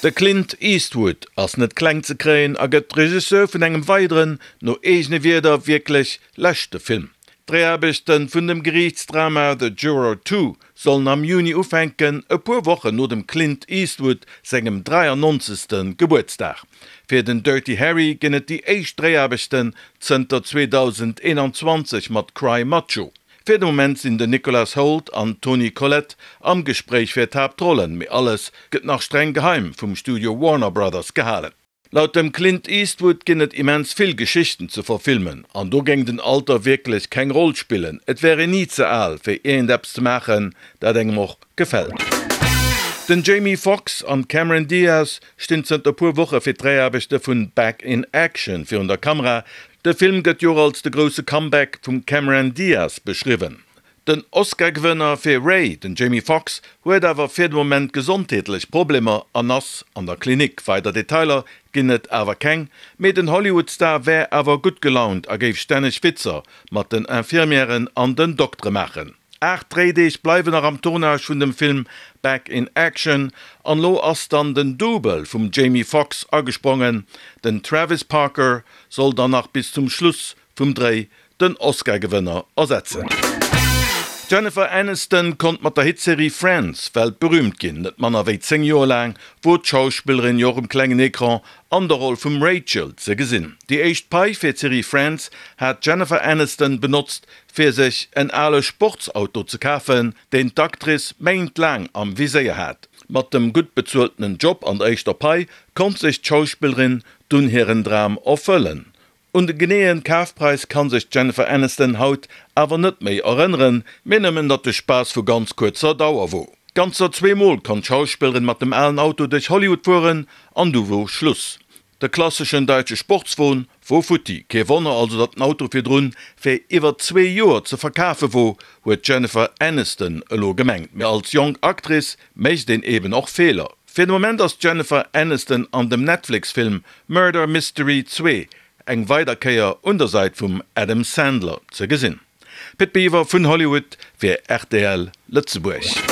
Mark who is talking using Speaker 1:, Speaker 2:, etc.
Speaker 1: De Clint Eastwood ass net kleng ze kréien a gëtt Regisseur vun engem weideren, no eegene Wierder wierklech leschte Film. D'Dréiaarbechte vun dem Geriichtsdrama The Juror 2 sollen am Juni ufänken, e puer Wochen no dem Clint Eastwood sengem 93. Gebuertsdag. Fir den Dirty Harry ginn et déi éischt Dréiaarbechten zënter 2021 mat Cry Macho. Fir de Moment sinn den Nicholas Hoult an d'Toni Collette am Gespréich fir d'Haaptrollen, mee alles gëtt nach streng geheim vum Studio Warner Brothers gehalen. Laut dem Clint Eastwood ginn et immens vill Geschichten ze verfilmen an do géing den Alter wierklech keng Roll spillen. Et wär een ni ze al fir iergendeppes ze maachen, dat engem och gefält. Den Jamie Foxx an d'Cameron Diaz stinn zënter puer Woche fir d'Dréiaarbechte vun Back in Action virun der Kamera. De Film gëtt jo och als de grousse Comeback vum Cameron Diaz beschriwwen. Den Oscar-Gewënner fir Ray, den Jamie Foxx, huet awer fir de Moment gesondheetlech Problemer an ass an der Klinik. Weider Detailer ginn et awer keng, mee den Hollywood-Star wär awer gutt gelaunt a géif stänneg Witzer mat den Infirmièren an den Doktere maachen. 8 Dréideeg bleiwen nach am Tournage vun dem Film Back in Action an lo ass dann den Double vum Jamie Foxx agesprongen. Den Travis Parker soll dann nach bis zum Schluss vum Dréi den Oscar-Gewënner ersetzen. D'Jennifer Aniston konnt mat der Hitserie Friends weltberüümt ginn. Net manner wéi 10 Joer laang wor d'Schauspillerin jo och um klengen Ecran an der Roll vum Rachel ze gesinn. Déi éischt Pai fir d'Serie Friends hat d'Jennifer Aniston benotzt fir sech en ale Sportsauto ze kafen, deen d'Actrice méintlaang am Viséier hat. Mat dem gutt bezueltenen Job an der éischter Pai konnt sech d'Schauspillerin dunn hiren Dram erfëllen. Un de geneeën Kafpräis kann sech d'Jennifer Aniston haut awer net méi erënneren, mee nëmmen datt de Spaass vu ganz kuerzer Dauer wor. Ganzer zweemol konnt d'Schauspillerin mat dem alen Auto duerch Hollywood fueren an du wor Schluss. De klasseschen daitsche Sportswon wor futti. Kee Wonner also datt den Auto virdrun fir iwwer zwee Joer ze verkafe wor, huet d'Jennifer Aniston elo gemengt. Mee als jonk Actrice mécht een eben och Feeler. Fir de Moment ass d'Jennifer Aniston an dem Netflix-Film Murder Mystery 2 eng weider Kéier un der Sait vum Adam Sandler ze gesinn. Pit Biwer vun Hollywood fir rtl Lëtzebuerg.